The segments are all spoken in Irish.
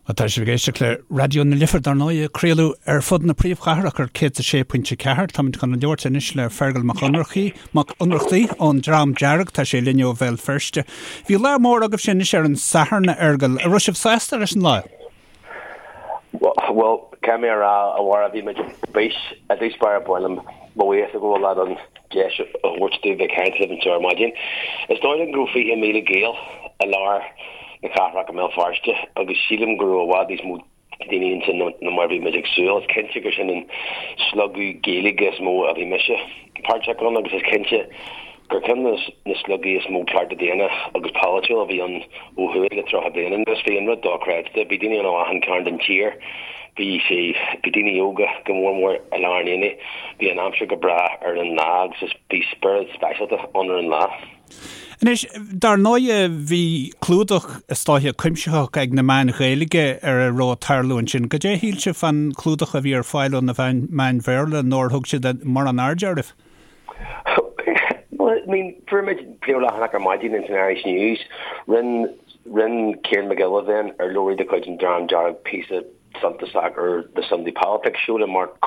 Tá sibh ag éisteacht le Raidió na Life, dar ndóigh, ag craoladh ar fud na príomhchathrach ar 106.4. Táimid chun labhairt anois le Feargal Mac Ionnrachtaigh, Mac Ionnrachtaigh ón Dream Dearg. Tá sé linn ó Bhéal Feirste. Bhí lá mór agaibhse anois ar an Satharn, a Fheargail. An raibh sibh sásta leis an lá? Bhuel, caithfidh mé a rá, a Mháire, bhí muid ar bís i dtús báire ba mhaith liom mo bhuíochas a ghabháil leat an deis a thabhairt domh bheith ag caint libh anseo ar maidin. Is dóigh liom go raibh 20,000 Gael i lár na cathrach i mBéal Feirste agus sílim go raibh i bhfad níos mó daoine ansin ná mar a bhí muid ag súil. Is cinnte gur sin an slogadh Gaeilge is mó a bhí mise páirteach ann agus is cinnte gur ceann de na slogaí is mó cearta daonna agus polaitiúil a bhí ann ó thuaidh le 30 bliain anuas. Bhí an rud dochreidte. Bhí daoine ann ó achan cearn den tír. Bhí sé, bhí daoine óga go mór mór i lár an aonaigh. Bhí an aimsir go breá ar an lá agus is bhí spiorad speisialta ann ar an lá. Anois, dar ndóighe, bhí clúdach is dóiche cuimsitheach ag na meáin Ghaeilge ar a raibh ag tarlú ansin. Goidé a shíl sibh fán chlúdach a bhí ar fáil ó na meáin Bhéarla nó ar thug siad mórán airde oraibh? Well, I mean, fuair muid príomhleathanach ar maidin ins an Irish News. Rinne, rinne Ciarán Mac Giolla Bhéin, urlabhraí de chuid an Dream Dearg píosa suntasach ar The Sunday Politics Show le Mark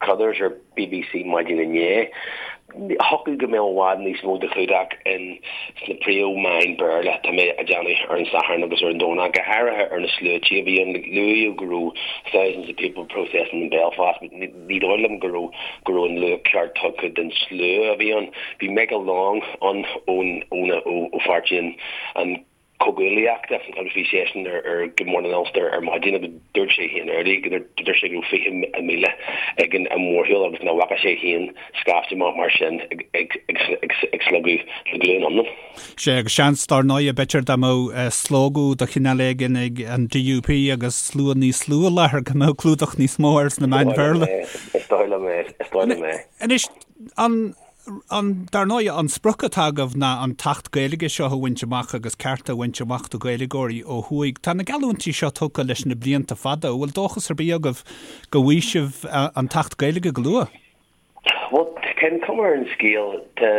Carruthers ar BBC maidin inné. Thiocfadh go mbeadh i bhfad níos mó de chlúdach in sna príomh-mheáin Béarla, tá mé a' déanamh, ar an Satharn agus ar an Domhnach, go háirithe ar na sluaite a bhí ann. Luaíodh go raibh thousands of people protesting in Belfast but ní dóigh liom go raibh go raibh an luach ceart tugtha den slua a bhí ann. Bhí Michael Long ann ón ón ó pháirtí an an Chomhghuaillíochta agus bhí seisean ar ar Good Morning Ulster ar maidin agus dúirt sé féin early go dúirt sé go raibh 20,000 ag an mórshiúl agus nach bhfaca sé féin scaifte mar sin ag ag ag ag ag slogadh le glúin iomlán. Sea, agus seans, dár ndóighe, b'fhéidir dá mbeadh slógadh de chineál éigin ag an DUP agus slua níos lú i láthair go mbeadh clúdach níos mó air sna meáin Bhéarla. Is dóigh liom é, is dóigh liom é. Anois, an, an, dar ndóighe, an sprioc atá agaibh ná an tAcht Gaeilge seo a bhaint amach agus cearta a bhaint amach do Ghaeilgeoirí ó thuaidh. Tá na geallúintí seo tugtha leis na blianta fada. An bhfuil dóchas ar bith agaibh go bhfaighidh sibh an tAcht Gaeilge go luath? Bhuel, tá an chuma ar an scéal, tá,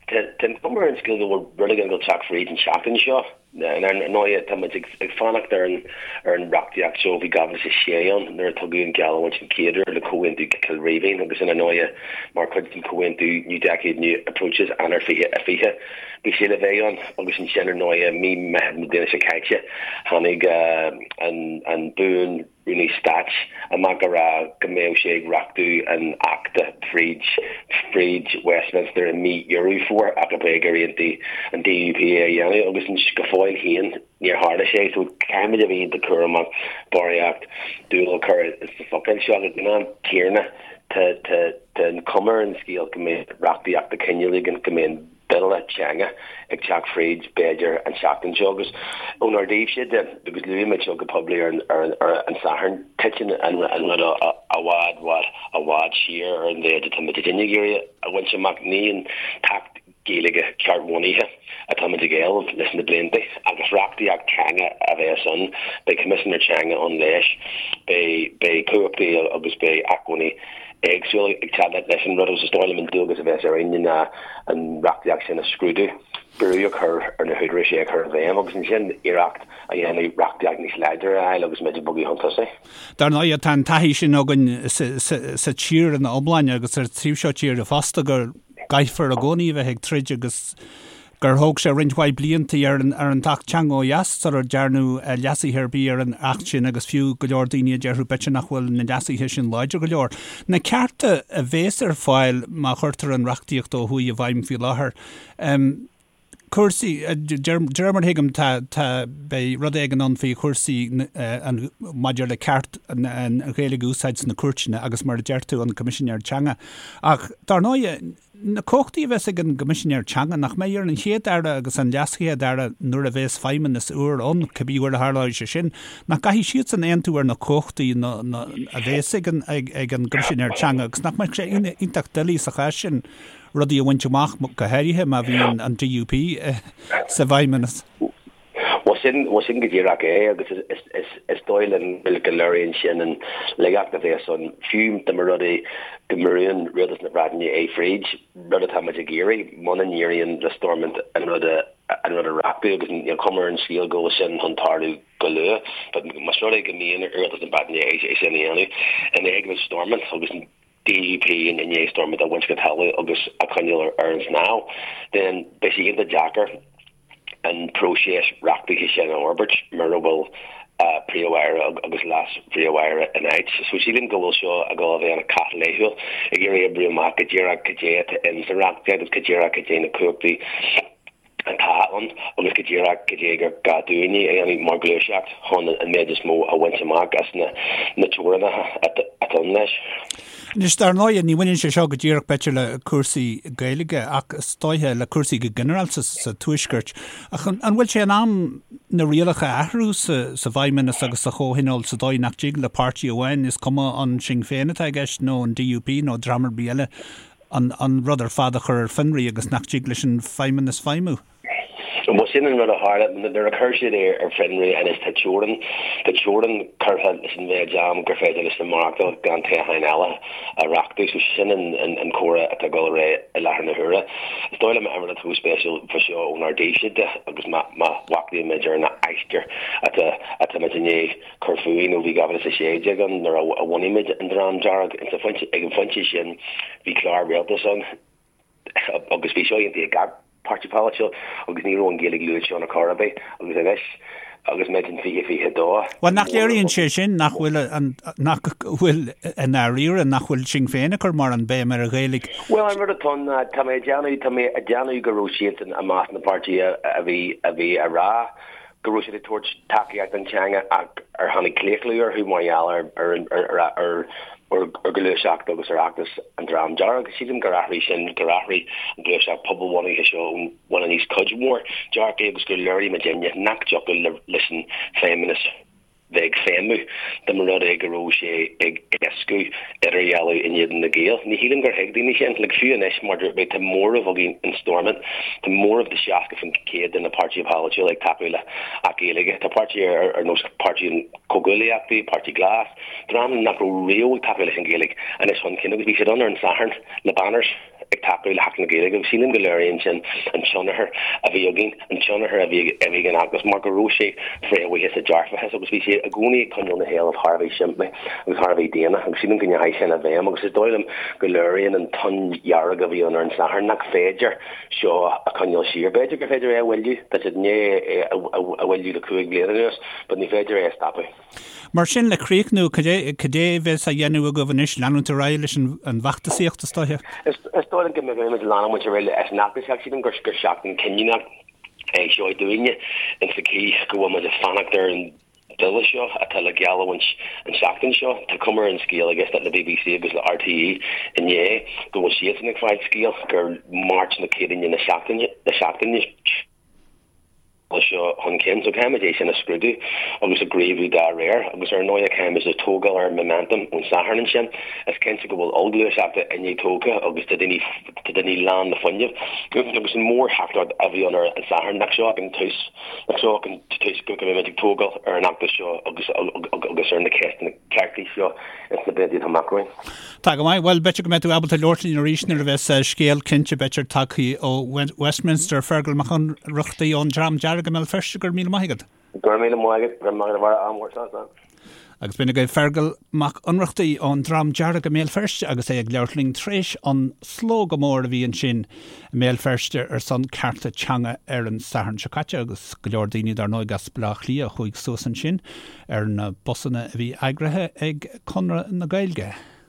tá, tá an chuma ar an scéal go bhfuil rud éigin ag dul teacht fríd an tseachtain seo. Ar ndóighe, tá muid ag, ag fanacht ar an, ar an reachtaíocht seo. Bhí 2006 ann nuair a tugadh an gheallúint an chéad uair le Comhaontú Chill Rímhinn agus ar ndóighe mar chuid den Chomhaontú New Decade New Approaches, Eanáir 2020, bhí sé le bheith ann agus ansin ar ndóighe mí Meitheamh na bliana seo caite tháinig an, an Buan Rúnaí Stáit amach a rá go mbeadh sé ag reachtú an Achta fríd fríd Westminster i mí Dheireadh Fómhair ach ab é gur aontaigh an DUP é a dhéanamh agus go fóill féin níor tharla sé so caithfimid a bheith iontach cúramach barraíocht dúil a chur sna focail seo ach ag an am céanna tá tá tá an chuma ar an scéal go mbeidh reachtaíocht de chineál éigin go mbeidh an bille teanga ag teacht fríd, b'fhéidir, an tseachtain seo agus ónár dtaobhse de, agus luaigh muid seo go poiblí ar an Satharn, titeann an rud i bhfad, bhfad, i bhfad siar ar an mhéid atá muid ag iarraidh a bhaint amach. Ní an tAcht Gaeilge ceart-bhunaithe atá muid ag éileamh leis na blianta agus reachtaíocht teanga a bheas ann. Beidh Coimisinéir Teanga ann leis, beidh cumhachtaí agus beidh acmhainní éagsúla ag teacht leis an rud agus is dóigh liom an dualgas a bheas orainn ná an reachtaíocht sin a scrúdú, brú a chur ar na húdaráis é a chur i bhfeidhm agus ansin iarracht a dhéanamh reachtaíocht níos láidre a fháil agus muid ag bogadh chun tosaigh. Dar ndóigh, tá an taithí sin againn sa tír ina iomláine agus ar an taobh seo tíre fosta go gcaithfear i gcónaí a bheith ag troid agus gur thóg sé roinnt mhaith blianta ar an ar an tAcht Teanga ó dheas sular dearnadh leasuithe ar bith ar an Acht sin agus fiú go leor daoine a déarfadh b'fhéidir nach bhfuil na leasuithe sin láidir go leor. Na cearta a bhéas ar fáil má chuirtear an reachtaíocht ó thuaidh i bhfeidhm faoi láthair, cúrsaí, de réir mar a thuigim tá, tá, beidh rud éigin ann faoi chúrsaí an, maidir le ceart an Ghaeilge a úsáid sna cúirteanna agus mar a deir tú an Coimisinéir Teanga. Ach dar ndóighe, Na cumhachtaí a bheas ag an gCoimisinéir Teanga, nach mbeidh ar an Chéad-Aire agus an LeasChéad-Aire nuair a bheas feidhmeannas úr ann, cibé uair a tharlóidh sé sin, nach gcaithfidh siadsan aontú ar na cumhachtaí a bheas ag an gCoimisinéir Teanga agus nach mbeadh sé iontach doiligh sa chás sin rudaí a bhaint amach, go háirithe má bhíonn an DUP sa bhfeidhmeannas? Bhuel sin, bhuel sin go díreach é agus is dóigh linn go léiríonn sin an laigeacht a bheas ann fiú dá mba rud é go mbrúann Rialtas na Breataine é fríd, rud atá muid ag iarraidh, muna n-éiríonn le Stormont an rud a. an rud a reachtú agus níl cuma ar an scéal go bhfuil sin chun tarlú go luath. But más rud é go mbíonn rialtas na Breataine é sin a dhéanamh in éagmais Stormont agus an DUP i ndiaidh Stormont a bhaint go talamh agus a choinneáil ar an snámh, then beidh sé iontach deacair an próiseas reachtaithe sin a fhorbairt mura bhfuil Príomh-Aire agus Leas-Phríomh-Aire in áit. So sílim go bhfuil seo ag dul a bheith ina cath laethúil ag iarraidh oibriú amach go díreach cad é atá in sa reachtaíocht agus go díreach cad é na cumhachtaí atá ann agus go díreach cad é gur gá dúinne a dhéanamh mar ghluaiseacht chun an méid is mó a bhaint amach as na teorainneacha atá ann leis. Anois, dar ndóighe, ní bhaineann sé seo go díreach, b'fhéidir, le cúrsaí Gaeilge ach is dóiche le cúrsaí go ginearálta sa Tuaisceart. Ach an bhfuil sé in am na rialacha a athrú sa bhFeidhmeannas agus sa Chomhthionól sa dóigh nach dtig le páirtí amháin, is cuma an Sinn Féin atá i gceist nó an DUP nó dream ar bith eile, an rud ar fad a chur ar fionraí agus nach dtig leis an Feidhmeannas feidhmiú? Bhuel, sin an rud a tharla. Nuair a chuir siad é ar fionraí anois tá teorainn, tá teorainn curtha leis an mhéid am gur féidir leis na maireachtáil gan toghcháin eile a reachtú. So sin an comhrá atá ag dul ar aghaidh i láthair na huaire. Is dóigh liom an rud atá chomh spéisiúil fá seo ónár dtaobhsa de agus má mhacnaímid ar an aistear atá atá muid i ndiaidh cur fúinn ó bhí 2016 ann nuair a bhunaigh muid an Dream Dearg. Ag an phointe sin bhí clár rialtais ann. agus bhí seo aontaithe ag gach páirtí polaitiúil agus ní raibh an Ghaeilge luaite ann ar chor ar bith agus anois agus muid in 2022. Bhuel, nach léiríonn sé sin nach bhfuil an, nach bhfuil i ndáiríre, nach bhfuil Sinn Féin ag cur mórán béim ar an Ghaeilge? Bhuel, an rud atá ann ná, tá mé ag déanamh, tá mé ag déanamh go raibh siadsan i measc na bpáirtithe a bhí, a bhí a rá go raibh siad ag tabhairt tacaíocht don teanga ach ar tháinig claochlú orthu mar gheall ar ar ghluaiseacht agus ar fheachtas an Dream Dearg. Sílim gur athraigh sin, gur athraigh an ghluaiseacht pobalbhunaithe seo ón bhun aníos cuid mhór dearcaí agus gur léirigh muidinne nach dtiocfadh leis an Feidhmeannas bheith ag feidhmiú dá mba rud é go raibh sé ag éascú idirdhealú in éadan na Gaeil. Ní shílim gur thuig daoine sin. Like, fiú anois, mar dúirt mé, tá móramh againn in Stormont, tá móramh de 60% de na páirtithe polaitiúla ag tacú le Acht Gaeilge. Tá páirtithe ar nós Páirtí an Chomhghuaillíochta, Páirtí Glas, dream nach raibh riamh ag tacú leis an Ghaeilge anois chun cinn agus bhí siad ann ar an Satharn le banners. ag tacú le hAcht na Gaeilge agus sílim go léiríonn sin an tionchar a bhí againn, an tionchar a bhí ag an fheachtas mar go raibh sé fréamhaithe sa dearfachas agus bhí sé i gcónaí ag coinneáil na héilimh thar a bheith simplí agus thar a bheith daonna agus sílim go ndeachaigh sin i bhfeidhm agus is dóigh liom go léiríonn an tonn dhearg a bhí ann ar an Satharn nach féidir seo a choinneáil siar. B'fhéidir gur féidir é a mhoilliú, tá siad i ndiaidh é a mhoilliú le 5 bliana anuas but ní féidir é a stopadh. Mar sin, le críochnú, cad é, cad é a bheas á dhéanamh agaibh anois, leanúint ar aghaidh leis an bhfeachtasaíocht, is dóiche? Is dóigh liom go mbeimid ag leanúint ar aghaidh leis an fheachtasaíocht. Sílim gur seachtain cinniúnach é seo dúinne, in sa chaoi go bhfuil muid ag fanacht ar an bhille seo atá le geallamhaint an tseachtain seo. Tá cuma ar an scéal ag éisteacht le BBC agus le RTÉ inné go bhfuil siadsan ag fáil scéal gur Máirt nó Céadaoine na seachtaine seo chun cinn. So caithfimid é sin a scrúdú agus a ghníomhú dá réir agus ar ndóigh caithfimid a tógáil ar an momentum ón Satharn ansin. Is cinnte go bhfuil ollghluaiseacht i ndiaidh tógtha agus tá daoine tá daoine lán le fuinneamh agus an mhórtheachtaireacht a bhí ann ar an Satharn nach seo ach an tús nach seo ach an tús go mbeimid ag tógáil ar an fheachtas seo agus agus ar na ceisteanna cearta seo ins na blianta atá amach romhainn. Tá go maith. Bhuel, b'fhéidir go mbeidh tú ábalta labhairt linn arís nuair a bheas scéal cinnte, b'fhéidir, tagtha ó Westminster. Fergal Mac Ionnrachtaigh ón Dream Dearg i mBéal Feirste, go raibh míle maith agat. Go raibh míle maith agat. Go raibh maith agat a Bharra. Ádh mór. Slán, slán. Agus b'in agaibh Fergal Mac Ionnrachtaigh ón Dream Dearg i mBéal Feirste agus é ag labhairt linn tar éis an slógadh mór a bhí ansin i mBéal Feirste ar son cearta teanga ar an Satharn seo caite agus go leor daoine dar ndóigh as Baile Átha Cliath a chuaigh suas ansin ar na busanna a bhí eagraithe ag Conradh na Gaeilge.